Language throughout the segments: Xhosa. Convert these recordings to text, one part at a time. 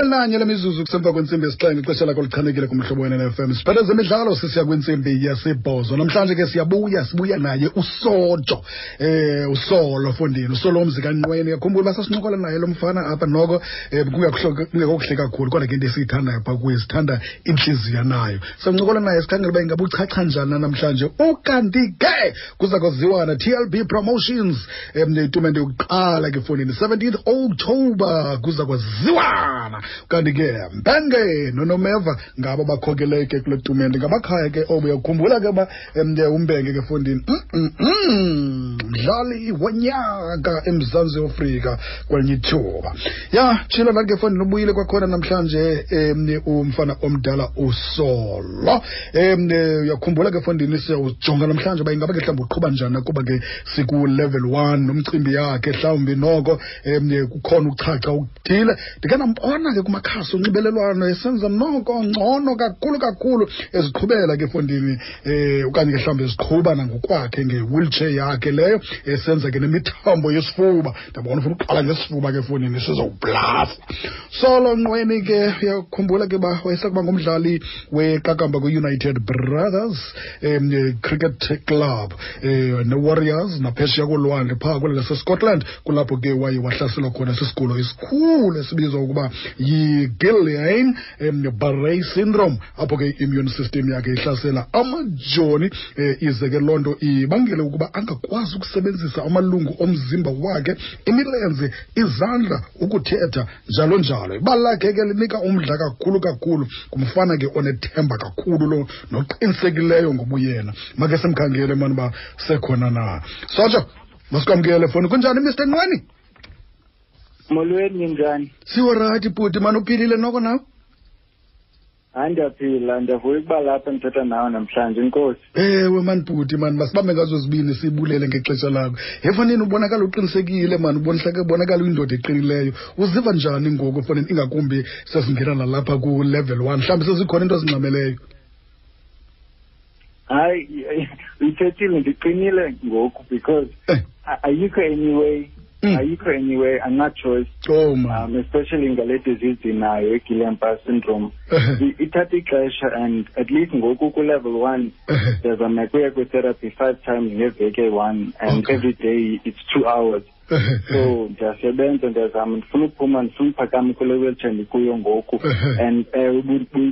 Nanye lemizuzu kusemva kwentsimbi yesixhenxe, ixesha lakho lichanekile kumhlobo wenene-FM. Siphethe zemidlalo, sisiya kwintsimbi yesibhozo. Namhlanje ke siyabuya, sibuya naye uSojo, uSolo fondini, uSolo umzi kaNqweni. Yakhumbula uba sasincokola naye lo mfana apha noko kungekuhle kakhulu, kodwa ke into esiyithandayo phaa kuye, sithanda intliziyo nayo. Sancokola naye sikhangela uba ingaba uchacha njani na namhlanje. Ukanti ke kuza kwaziwa na TLB Promotions, itumente yokuqala ke fondini 17th October kuza kwaziwana. Kanti ke Mbenge noNomeva ngabo bakhokele ke kule tumente, ngabakhaya ke obo. Uyakhumbula ke uba uMbenge ke fondini mdlali wonyaka eMzantsi Afrika kwelinye ithuba. Ya tshilo nathi ke fondini, ubuyile kwakhona namhlanje umfana omdala uSolo. Uyakhumbula ke fondini, siyawujonga namhlanje uba ingaba ke mhlawumbi uqhuba njani, kuba ke siku-level 1 nomcimbi yakhe mhlawumbi noko kukhona ukuchacha okuthile. Ndike ndambona ke kumakhasi onxibelelwano esenza noko ngcono kakhulu kakhulu, eziqhubela ke fondini, okanye ke mhlawumbi eziqhuba nangokwakhe nge-wheelchair yakhe leyo, esenza ke nemithambo yesifuba. Ndabona ufuna uqala ngesifuba ke fondini, sizowublasa. Solo Nqweni ke, uyakhumbula ke uba wayesakuba ngumdlali weqakamba kwi-United Brothers Cricket Club ne-Warriors naphesheya kolwandle phaa kweli laseScotland, kulapho ke waye wahlaselwa khona sisigulo esikhulu esibizwa ukuba yi-Guillain Barre syndrome, apho ke i-immune system yakhe ihlasela amajoni, ize ke loo nto ibangele ukuba angakwazi ukusebenzisa amalungu omzimba wakhe, imilenze, izandla, ukuthetha, njalo njalo. Ibali lakhe ke linika umdla kakhulu kakhulu, ngumfana ke onethemba kakhulu lo, noqinisekileyo ngobuyena. Make simkhangele mani uba sekhona na. Sotsho, masikwamkele foni. Kunjani Mr Nqweni? Molweni, njani? Siworayithi bhuti, mani uphilile noko nawe? Hayi, ndiyaphila, ndiyavuya ukuba lapha ndithetha nawe namhlanje. Inkosi. Ewe mani bhuti, mani masibambe ngazo zibini, sibulele ngexesha lakho. Hefanini, ubonakala uqinisekile mani, ubonakala uyindoda eqinileyo. Uziva njani ngoku fanini, ingakumbi sesingena nalapha ku-level 1, mhlawumbi sezikhona into ezingxameleyo? Hayi, uyithethile, ndiqinile ngoku because ayikho anyway. Ayikho anyway, andina-choice. Oh, man. Especially ngale disease ndinayo, i-Guillain-Barre syndrome. Ithatha ixesha, and at least ngoku ku-level 1, ndiyazama kuya kwi-therapy 5 times ngeveki eyi-1, and every day it's 2 hours. So ndiyasebenza, ndiyazama, ndifuna ukuphuma, ndifuna uphakama kule wheelchair ndikuyo ngoku. And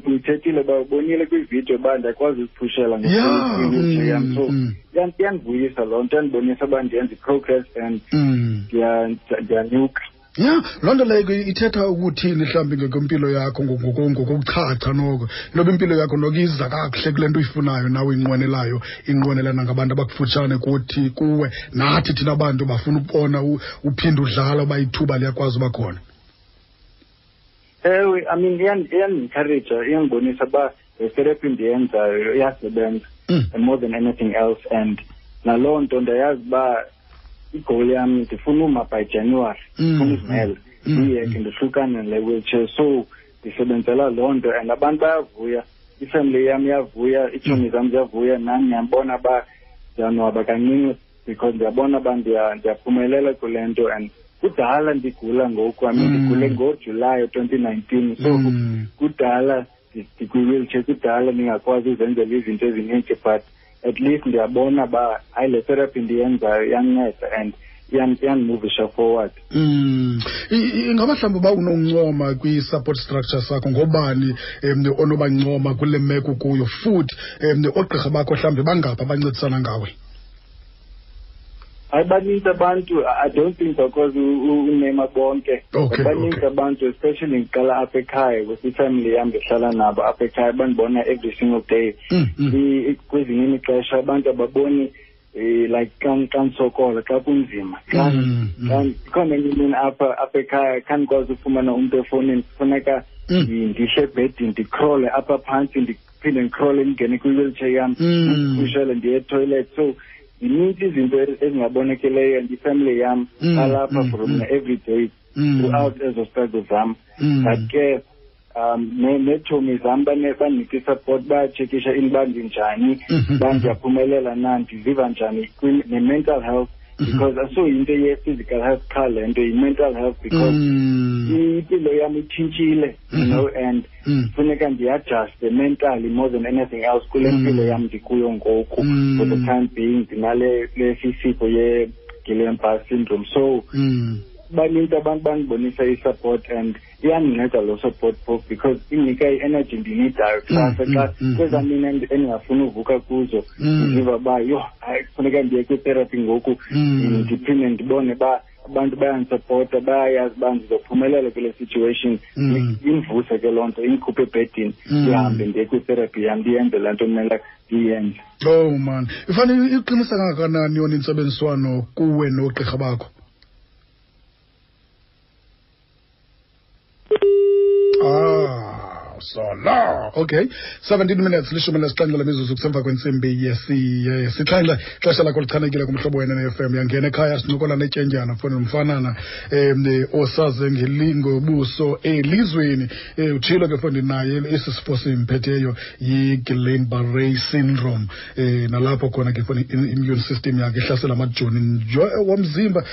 uyithethile uba ubonile kwividiyo uba ndiyakwazi uziphushela nge-wheelchair yam. So iyandivuyisa loo nto, iyandibonisa uba ndiyenza i-progress and ndiyanyuka. Ya, loo nto leyo ithetha ukuthini mhlawumbi ngokwempilo yakho, ngokuchacha noko? Intoba impilo yakho noko iza kakuhle kule nto uyifunayo nawe uyinqwenelayo, inqwenelana ngabantu abakufutshane kuthi kuwe, nathi thina bantu bafuna ukubona uphinde udlala uba ithuba liyakwazi uba khona. Ewe, I mean, iyandi-encourage, iyandibonisa uba le therapy ndiyenzayo iyasebenza and more than anything else. And naloo nto ndiyayazi uba igoal yam, ndifuna uma by January, ndifuna uzimela, ndiyeke, ndihlukane nale wheelchair. So ndisebenzela loo nto, and abantu bayavuya, ifamily yam iyavuya, iitshomi zam ziyavuya, nam ndiyabona uba ndiyanwaba kancinci because ndiyabona uba ndiyaphumelela kule nto. And kudala ndigula ngoku, I mean, ndigule ngoJulayi 2019, so kudala ndikwi-wheelchair, kudala ndingakwazi uzenzela izinto ezininzi, but at least ndiyabona uba hayi, le therapy ndiyenzayo iyanceda and iyandimuvisha forward. Ingaba mhlawumbi uba unoncoma kwi-support structure sakho, ngobani onobancoma kule meko kuyo, futhi oogqirha bakho mhlawumbi bangaphi abancedisana ngawe? Hayi, baninzi abantu, I don't think bakwazi unema bonke. Baninzi abantu, especially ngiqala apha ekhaya with ifamily yam, ndihlala nabo apha ekhaya, bandibona every single day. Kwezinye imixesha abantu ababoni, like xa ndisokola, xa kunzima, xa ikhona enye imini apha ekhaya khandikwazi ufumana umntu efowunini, kufuneka ndihle ebhedini, ndicrawle apha phantsi, ndiphinde ndicrawle ndingene kwi-wheelchair yam, ndiphushele ndiye etoilet. So zininzi izinto ezingabonakeleyo, and ifamily yam alapha for mna every day throughout ezo struggles zam. But ke neetshomi zam bandinika i-support, bayatshekisha into uba ndinjani, uba ndiyaphumelela na, ndiziva njani, ne-mental health. Because asoyinto ye-physical health qha le nto, yi-mental health, because impilo yam itshintshile, you know, and funeka ndiadjuste mentally more than anything else kule mpilo yam ndikuyo ngoku. For the time being ndinale lesi sifo ye-Guillain-Barre syndrome. So banintsi abantu bandibonisa i-support, and iyandinceda loo support phofu because indinika i-energy ndiyineedayo kusasa xa kwezaa mini endingafuni uvuka kuzo, ndiziva uba yho, hayi, kufuneka ndiye kwitherapy ngoku, ndiphinde ndibone uba abantu bayandisupporta, bayayazi uba ndizophumelela kule situation. Indivuse ke loo nto, indikhuphe ebhedini, ndihambe ndiye kwitherapy yam, ndiyenze laa nto kumele ndiyenze. Oh man, ifanele iqinisa kangakanani yona intsebenziswano kuwe noogqirha bakho? Ah, solo. Okay. 17 minutes, 17 lemizuzu kusemva kwentsimbi yesixhenxe. Xesha lakho lichanekile kumhlobo wena ne-FM. Yangena ekhaya, sincokola netyendyana foni nomfanana osaze ngelingobuso elizweni. Utshilo ke foni naye esi sifo simphetheyo yi-Guillain-Barré syndrome. Nalapho khona ke foni immune system yakhe ihlasela amajoni nje womzimba,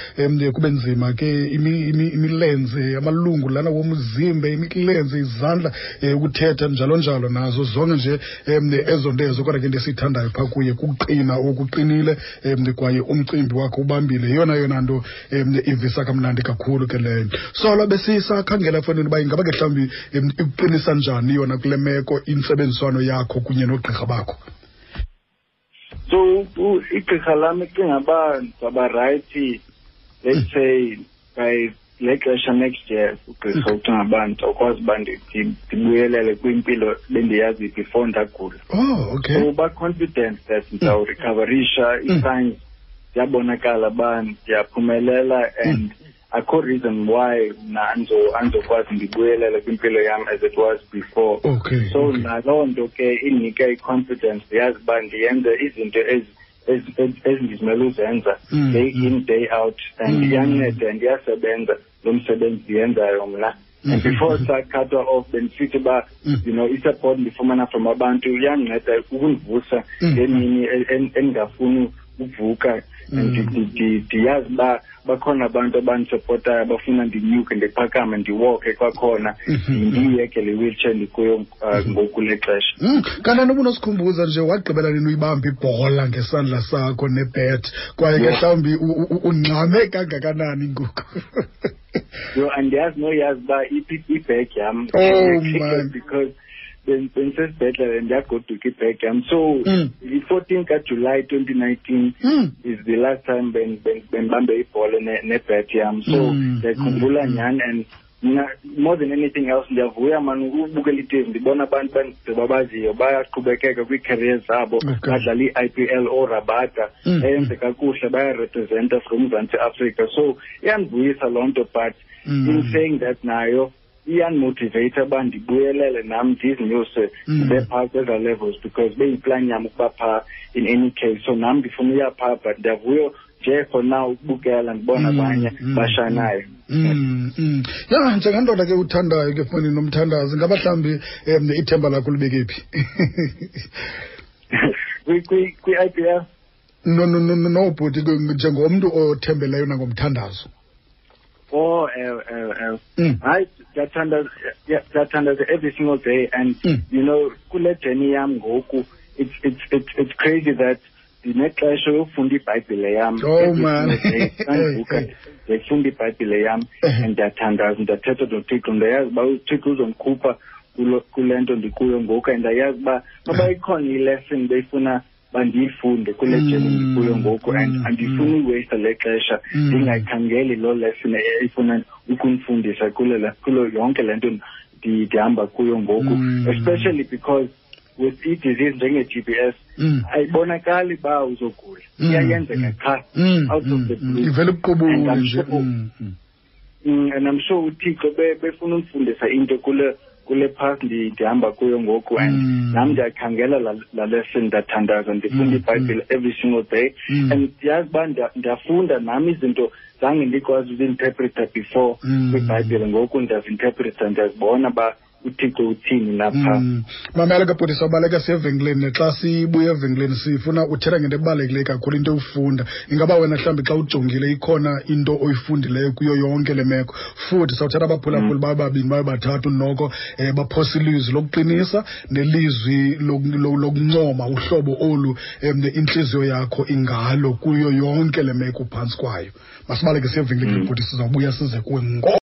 kube nzima ke imilenze, amalungu lana womzimba, imilenze, izandla, ukuthetha, njalo njalo, nazo zonke nje ezo nto ezo. Kodwa ke into esiyithandayo phaa kuye kuqina okuqinile, kwaye umcimbi wakhe ubambile, yeyona yona nto ivisa kamnandi kakhulu ke leyo. Solo, besisakhangela efowunini uba ingaba ke mhlawumbi ikuqinisa njani yona kule meko intsebenziswano yakho kunye noogqirha bakho. So igqirha lam icinga uba ndizawuba right, let's say by le xesha next year. Ugqirha ucinga uba ndizawukwazi uba ndibuyelele kwimpilo bendiyazi before ndagula. So ba-confident that ndizawurecoverisha. Ii-signs ziyabonakala uba ndiyaphumelela, and akho reason why mna andizokwazi ndibuyelele kwimpilo yam as it was before. So naloo nto ke indinike i-confidence, ndiyazi uba ndiyenze izinto ezindizimele uzenza day in, day out, and iyanceda and iyasebenza lo msebenzi ndiyenzayo mna. And before sacutwa off, bendisithi uba i-support ndifumana from abantu iyandinceda ukundivusa ngemini endingafuni uvuka, and ndiyazi uba bakhona abantu abandisupportayo, abafuna ndinyuke, ndiphakame, ndiwalke kwakhona, ndiyeke le wheelchair ndikuyo ngoku le xesha. Kanti ubunosikhumbuza nje, wagqibela nini uyibamba ibhola ngesandla sakho nebet, kwaye ke mhlawumbi ungxame kangakanani ngoku? Yho, andiyazi noyazi uba iphi ibag yam. Oh, man. Because bendisesibhedlele, ndiyagoduka, ibag yam. So i-14 kaJulayi 2019 is the last time bendibambe ibhola nebet yam. So ndiyakhumbula nyhani, and mna more than anything else ndiyavuya mani ukubukela i-TV, ndibona abantu babaziyo bayaqhubekeka kwii-career zabo, badlala i-IPL, ooRabada, eyenze kakuhle, bayarepresenta from uMzantsi Afrika. So iyandivuyisa loo nto, but in saying that, nayo iyandimotiveyitha uba ndibuyelele nam, ndizinyuse, ndibe phaa kwezaa levels, because beyiplan yam ukuba phaa in any case. So nam ndifuna uya phaa, but ndiyavuya nje for now ukubukela, ndibona abanye bashanayo. Ya, njengendoda ke uthandayo ke foni nomthandazo, ingaba mhlawumbi ithemba lakho libeke phi? Kwi-IPL? No, no, bhuti, njengomntu othembeleyo nangomthandazo. Oh, ewe, ewe, ewe. Hayi, ndiyathandaza, ndiyathandaza every single day, and kule journey yam ngoku, it's crazy that ndinexesha yokufunda iBhayibhile yam. Oh, Every man. single day, xa ndivuka, ndiyayifunda iBhayibhile yam and ndiyathandaza, ndiyathetha noThixo. Ndiyayazi uba uThixo uzondikhupha kule nto ndikuyo ngoku, and ndiyayazi uba noba ikhona i-lesson beyifuna bandiyifunde kule journey ndikuyo ngoku, and andifuni uyiwasta le xesha ndingayikhangeli loo lesson efuna ukundifundisa kulo yonke le nto ndihamba kuyo ngoku, especially because with i-disease njenge-GBS ayibonakali uba uzogula, iyayenzeka qha out of the blue. Ivele ibuqubule And I'm nje. sure and I'm sure uThixo befuna undifundisa into kule path ndihamba kuyo ngoku, and nam ndiyakhangela la lesson, ndathandaza, ndifunda iBhayibhile every single day, and ndiyazi uba ndiyafunda nam izinto zange ndikwazi uzi-interpreta before kwiBhayibhile. Ngoku ndiyazi-interpreta, ndiyazibona uba uThixo uthini napha. Mamela ke bhuti, sawubaleka siye evenkileni. Xa sibuya evenkileni sifuna uthetha ngento ebalulekileyo kakhulu, into ewufunda. Ingaba wena mhlawumbi xa ujongile ikhona into oyifundileyo kuyo yonke le meko? Futhi sawuthatha abaphulaphuli babe babini, babe bathathu noko, baphosa ilizwi lokuqinisa nelizwi lokuncoma uhlobo olu intliziyo yakho ingalo kuyo yonke le meko uphantsi kwayo. Masibaleke siye evenkileni, bhuti, sizawubuya size kuwe ngo.